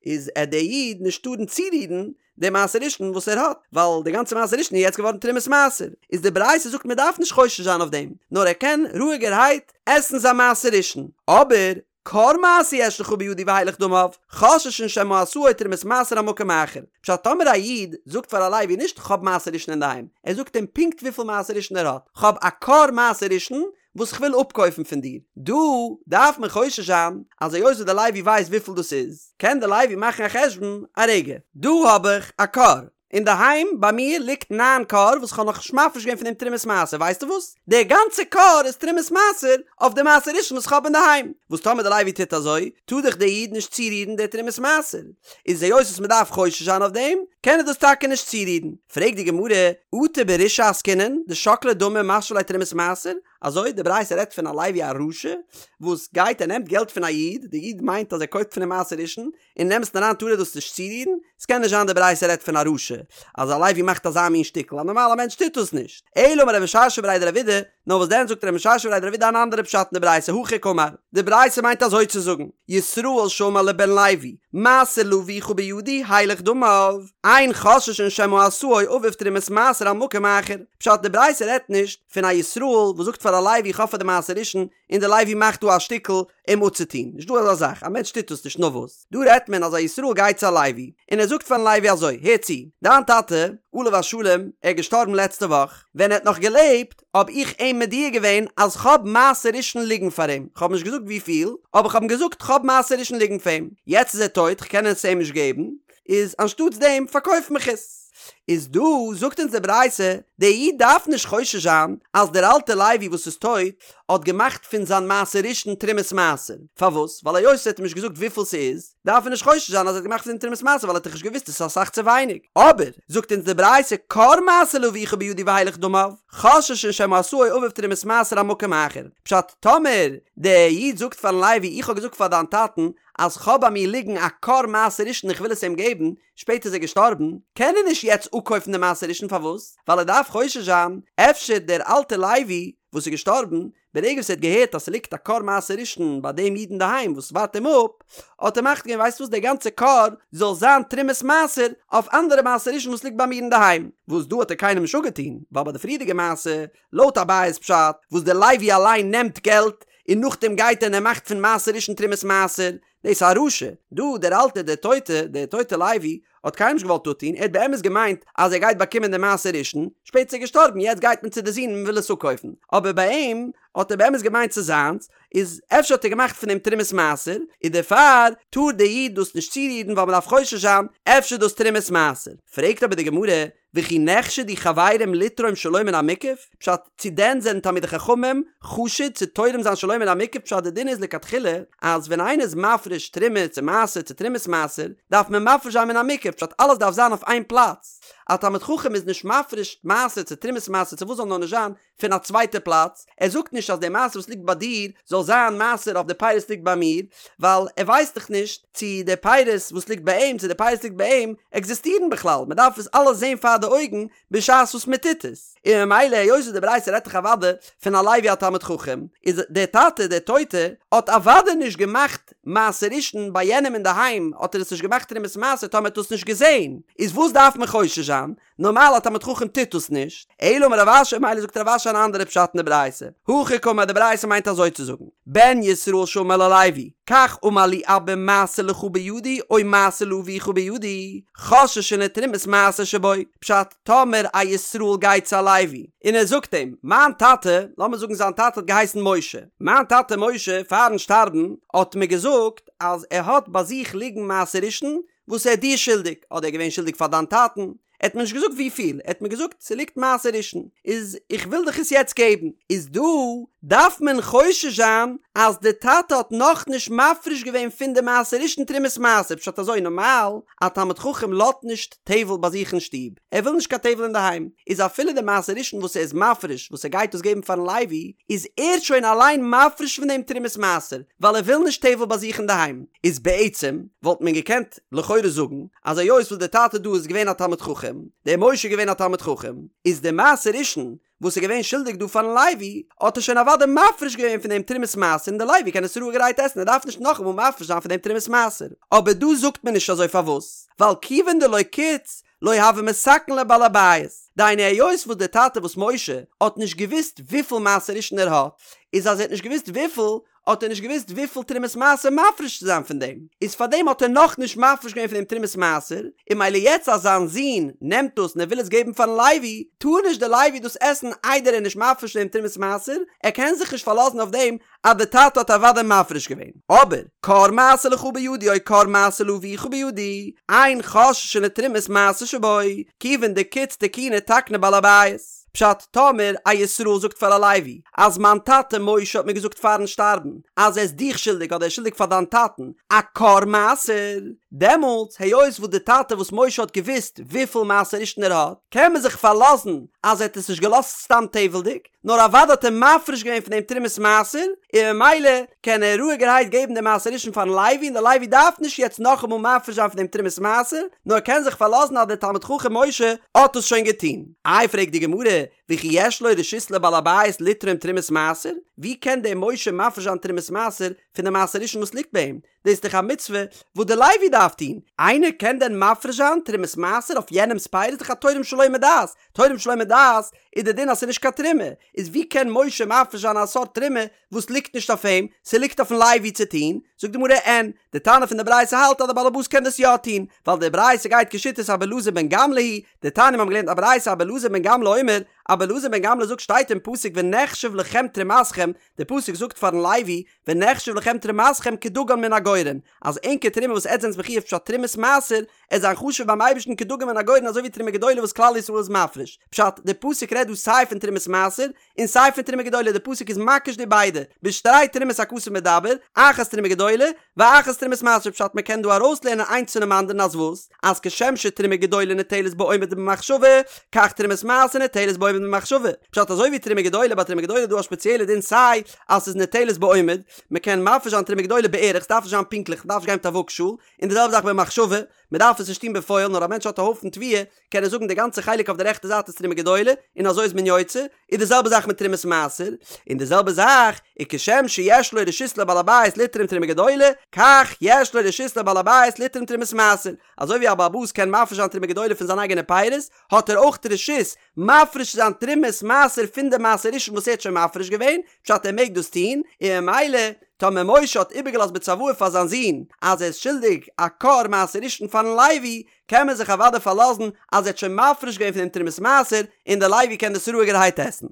איז עט די איד נישט טארן צורירן די מעשר ראשון וואס ער האט, ווייל די גאנצע מעשר ראשון איז יעצט געווארן תרומת מעשר. איז די ברייתא זאגט מען דארף נישט חושש זיין אויף דעם, נאר ער קען רואיגערהייט עסן זיין מעשר ראשון. אבער כור מעשר יש לך בידי והילך דמיו, חוששין שמא עשאו תרומת מעשר על מקום אחר. פשט טאמער א איד זאגט פאר א לוי נישט כ'האב מעשר ראשון אינדערהיים, ער זאגט אים פונקט וויפיל מעשר ראשון ער האט, כ'האב א כור מעשר ראשון וואס כ'וויל אפקויפן פון דיר. דא דארף מען חושש זיין אז היות וואס די לוי ווייסט וויפיל דאס איז, קען די לוי מאכן א חשבון, א רגע, דא האב איך א כור, אינדערהיים ביי מיר ליגט ניין כור וואס כ'האב נאכנישט מפריש געווען פון דעם תרומת מעשר, ווייסטו וואס? דער גאנצע כור איז תרומת מעשר אויף די מעשר ראשון וואס כ'האב אינדערהיים. וואס טאמער די לוי טוט אזוי, טאר דאך דער איד נישט צורירן די תרומת מעשר. איז היות וואס מ'דארף חושש זיין אויף דעם, קען ער דאס טאקע נישט צורירן. פרעגט די גמרא, אטו ברישעא עסקינן, דשקלי דמי ומשוי ליה תרומת מעשר? אזוי? די ברייתא רעדט פון א לוי א רשע, וואס גייט ער נעמט געלט פון א איד, די איד מיינט אז ער קויפט פון אים מעשר ראשון, אין אמת'ן אריין טאר ער דאס נישט צורירן, ס'קען נישט זיין די ברייתא רעדט פון א רשע, אז א לוי מאכט אזא מין שטיקל, א נארמאלע מענטש טוט דאס נישט. אלא אמר רב משרשיא בריה דרב אידי, נאר וואס דען זאגט רב משרשיא בריה דרב אידי אן אנדערע פשט אין די ברייתא, הכי קאמר, די ברייתא מיינט אזוי צו זאגן, ישראל שאמר לבן לוי, מעשר לאביך בידי, הילך דמיו, אין חוששין שמא עשאו אביו תרומת מעשר על מקום אחר. פשט, די ברייתא רעדט נישט פון א ישראל וואס זאגט פאר א לוי איך האב פאר דיר מעשר ראשון, און די לוי מאכט דא א שטיקל אים אפצוטון, נישט דא אזא זאך, א מענטש טוט דאס נישט, נאר וואס, דא רעדט מען אז א ישראל גייט צו א לוי, און ער זאגט פארן לוי אזוי, הער צו, דיין טאטע, עליו השלום, ער איז געשטארבן לעצטע וואך, ווען ער האט נאך געלעבט, האב איך אים מודיע געווען אז כ'האב מעשר ראשון ליגן פאר אים, כ'האב נישט געזאגט וויפיל, אבער כ'האב אים געזאגט כ'האב מעשר ראשון ליגן פאר אים, יעצט איז ער טויט, כ'קען עס אים נישט געבן, איז אנשטאטס דעם פארקויף מיך עס. איז דא זאגט אונז די ברייתא, דער איד דארף נישט חושש זיין אז דער אלטער לוי וואס איז טויט האט געמאכט פון זיין מעשר ראשון תרומת מעשר, פארוואס? ווייל היות ער האט אים נישט געזאגט וויפיל ס'איז, דארף ער נישט חושש זיין אז ער האט געמאכט פון דעם תרומת מעשר ווייל ער האט דאך נישט געוואוסט עס איז אסאך צו ווייניג. אבער, זאגט אונז די ברייתא, כור מעשר לאביך בידי והילך דמיו, חוששין שמא עשאו אביו תרומת מעשר על מקום אחר. פשט, טאמער דער איד זאגט פארן לוי איך האב געזאגט פאר דיין טאטן אז כ'האב ביי מיר ליגן א כור מעשר ראשון איך וויל עס אים געבן, שפעטער איז ער געשטארבן, קען ער נישט יעצט אפקויפן די מעשר ראשון פארוואס? ווייל ער דארף חושש זיין, אפשר דער אלטער לוי וואס איז געשטארבן, ברגע וואס ער האט געהערט אז ס'ליגט א כור מעשר ראשון ביי דעם איד אינדערהיים וואס ווארט אים אפ, האט ער מחליט געווען ווייסט וואס דער גאנצער כור זאל זיין תרומת מעשר אויף אנדערע מעשר ראשון וואס ליגט ביי מיר אינדערהיים, וואס דא האט ער קיינעם נישט אפגעטון, ווייל ביי די פריערדיגע מעשה, לויט אביי'ס פשט, וואס דער לוי אליין נעמט געלט און נאכדעם גייט ער און ער מאכט פון מעשר ראשון תרומת מעשר, דאס איז א רשע. דא דער אלטער דער טויטע, דער טויטע לוי, האט קיינעם נישט געוואלט אפטון, ער האט באמת געמיינט אז ער גייט באקומען דעם מעשר ראשון, שפעטער איז ער געשטארבן, יעצט גייט מען צו די זון און מען וויל עס אפקויפן, אבער ביי אים האט ער באמת געמיינט ס'איז זיינס, איז אפשר האט ער געמאכט פון דעם תרומת מעשר, און דערפאר טאר דער איד דאס נישט צורירן ווייל מען דארף חושש זיין אפשר דאס תרומת מעשר. פרעגט אבער די גמרא, וכי נחשדו חברים לתרום שלא מן המוקף? פשט, צו דען זענען תלמידי חכמים חשוד צו תורם זיין שלא מן המוקף? פשט, די דין איז לכתחילה אז ווען איינער איז מפריש תרומה צו מעשר צו תרומת מעשר, דארף מען מפריש זיין מן המוקף, פשט, אלעס דארף זיין אויף איין פלאץ. א תלמיד חכם איז נישט מפריש מעשר צו תרומת מעשר צו וואס זאל נאר נישט זיין, פון א צווייטע פלאץ, ער זאגט נישט אז די מעשר וואס ליגט ביי דיר זאל זיין מעשר אויף די פירות ליגט ביי מיר, ווייל ער ווייסט דאך נישט צו די פירות וואס ליגט ביי אים צו די פירות ליגט ביי אים עקזיסטירן בכלל, מען דארף עס אלעס זען פאר די אויגן בשעת וואס מען טוט עס, און ממילא היות וואס די ברייתא רעדט דאך אוודאי פון א לוי א תלמיד חכם, איז דער טאטע דער טויטע האט אוודאי נישט געמאכט מעשר ראשון ביי יענעם אינדערהיים האט ער עס נישט געמאכט תרומת מעשר טאמער ער האט עס נישט געזען, איז וואס דארף מען חושש זיין? נארמאל א תלמיד חכם טוט דאס נישט, אלא אמר רב אשי מילא זאגט רב אשי אן אנדערע פשט אין די ברייתא, הכי קאמר די ברייתא מיינט אזוי צו זאגן, בן ישראל שאמר ללוי, כך אמר לי אבא מעשר לך בידי או מעשר לאביך בידי, חוששין לתרומת מעשר שבו, פשט, טאמער א ישראל גייט צו א לוי און ער זאגט אים, מיין טאטע, לאמיר זאגן זיין טאטע האט געהייסן משה, מיין טאטע משה פארן שטארבן האט מיר געזאגט אז ער האט ביי זיך ליגן מעשר ראשון וואס ער איז דיר שולדיג, אדער ער איז געווען שולדיג פאר דיין טאטן, ער האט מיר נישט געזאגט וויפיל, ער האט מיר געזאגט ס'ליגט מעשר ראשון, איז איך וויל דיך עס יעצט געבן, איז דא דארף מען חושש זיין אז די טאטע האט נאכנישט מפריש געווען פון די מעשר ראשון תרומת מעשר, פשט אזוי נארמאל א תלמיד חכם לאזט נישט טבל ביי זיך אין שטוב, ער וויל נישט קיין טבל אינדערהיים, איז אפילו די מעשר ראשון וואס ער איז מפריש וואס ער גייט דאס געבן פארן לוי, איז ער שוין אליין מפריש פון דעם תרומת מעשר, ווייל ער וויל נישט טבל ביי זיך אינדערהיים. איז בעצם וואלט מען געקענט לכאורה זאגן אז היות וואס דער טאטע דא איז געווען א תלמיד חכם. חכם, דער משה איז געווען א תלמיד חכם, איז דער מעשר ראשון וואס איז געווען שולדיג דא פארן לוי, האט ער שוין אוודאי מפריש געווען פון דעם תרומת מעשר און דער לוי קען עס רואיגערהייט עסן ער דארף נישט נאכאמאל מפריש זיין פון דעם תרומת מעשר. אבער דא זאגט מען נישט אזוי פארוואס? ווייל כיוון דלא קיץ לא הוה מתקן ליה בעל הבית, דהיינו היות וואס דער טאטע וואס משה האט נישט געוואוסט וויפיל מעשר ראשון ער האט, איז אז ער האט נישט געוואוסט וויפיל, האט ער נישט געוואוסט וויפיל תרומת מעשר מפריש צו זיין פון דעם, איז פארדעם האט ער נאכנישט מפריש געווען פון דעם תרומת מעשר, און מילא יעצט אז זיין זון נעמט דאס און ער וויל עס געבן פארן לוי, טאר נישט דער לוי דאס עסן איידער ער איז נישט מפריש פון דעם תרומת מעשר, ער קען זיך נישט פארלאזן אויף דעם אז דער טאטע האט אוודאי מפריש געווען. אבער, כור מעשר לך בידי או כור מעשר לאביך בידי, אין חוששין לתרומת מעשר שבו, כיוון דקיץ תקוני תקניה בעל הבית. פשט, טאמער א ישראל זאגט פאר א לוי, אז מיין טאטע משה האט מיר געזאגט פארן שטארבן, אז ער איז דיך שולדיג אדער ער איז שולדיג פאר דיין טאטן א כור מעשר, דעמאלטס היות וואס די טאטע וואס משה האט געוואוסט וויפיל מעשר ראשון ער האט, קען מען זיך פארלאזן אז ער האט עס נישט געלאזט סתם טבל'דיג, נאר אוודאי האט ער מפריש געווען פון דעם תרומת מעשר, און ממילא קען ער רואיגערהייט געבן דעם מעשר ראשון פארן לוי און דער לוי דארף נישט יעצט נאכאמאל מפריש זיין פון דעם תרומת מעשר, נאר קען זיך פארלאזן אז דער תלמיד חכם משה האט עס שוין געטון. איי פרעגט די גמרא, וכי יש לו רשות לבעל הבית לתרום תרומת מעשר? ווי קען דער משה מפריש זיין תרומת מעשר פון די מעשר ראשון וואס ליגט ביי אים? דאס איז דאך א מצוה וואס דער לוי דארף טון, איינער קען דען מפריש זיין תרומת מעשר אויף יענעמ'ס פירות? איז דאך א תורם שלא מדעת, תורם שלא מדעת איז די דין אז ס'איז נישט קיין תרומה, איז ווי קען משה מפריש זיין א סארט תרומה וואס ליגט נישט אויף אים, ס'ליגט אויפן לוי צו טון? זאגט די גמרא אין, די תנא פון די ברייתא האלט אז די בעל הבית קען דאס יא טון, ווייל די ברייתא גייט כשיטת אבא אלעזר בן גמלא היא, דתניא מיר האבן געלערנט א ברייתא אבא אלעזר בן גמלא אומר, אבא אלעזר בן גמלא זאגט שטייט אין פסוק ונחשב לכם תרומתכם, די פסוק זאגט פארן לוי ונחשב לכם תרומתכם כדגן מן הגורן, אז ענקער תרומה וואס עטס זענטס מחויב פשט תרומת מעשר, עט זיין חשוב ביים אייבערשטן כדגן מן הגורן אזוי ווי תרומה גדולה וואס כלל ישראל איז מפריש. פשט, די פסוק רעדט דא סיי פון תרומת מעשר, און סיי פון תרומה גדולה, די פסוק איז מקיש די ביידע, בשתי תרומות הכתוב מדבר, אחת תרומה גדולה, ואחת תרומת מעשר פשט מען קען דא ארויסלערנען איינס פונעם אנדערן אז וואס? אז כשם שתרומה גדולה ניטלת בעומד ובמחשבה, כך תרומת מעשר ניטלת בעומד ובמחשבה. פשט אזוי ווי תרומה גדולה, ביי תרומה גדולה איז דא א שפעציעלע דין סיי אז ס'איז ניטלת בעומד, מ'קען מפריש זיין תרומה גדולה בערך, ס'דארף נישט זיין פונקטליך, מ'דארף נישט גיין מיט א וואגשאל, און די זעלבע זאך במחשבה, מ'דארף עס נישט טון בפועל, נאר א מענטש האט א הויפן תבואה, קען ער זאגן די גאנצע חלק אויף די רעכטע זייט איז תרומה גדולה, און אזוי איז מען יוצא, איז די זעלבע זאך מיט תרומת מעשר, און די זעלבע זאך איז כשם שיש לו רשות לבעל הבית לתרום תרומה גדולה, כך יש לו רשות לבעל הבית לתרום תרומת מעשר, אזוי ווי א בעל הבית קען מפריש זיין תרומה גדולה פון זיין אייגענע פירות, האט ער אויך רשות מפריש צו זיין תרומת מעשר פון די מעשר ראשון וואס ער האט שוין מפריש געווען, פשט ער מעג דאס טון, און ממילא טאמער משה האט איבערגעלאזט בצוואה פאר זיין זון אז ער איז שולדיג א כור מעשר ראשון פארן לוי, קען מען זיך אוודאי פארלאזן אז ער האט שוין מפריש געווען פון דעם תרומת מעשר און דער לוי קען דאס רואיגערהייט עסן.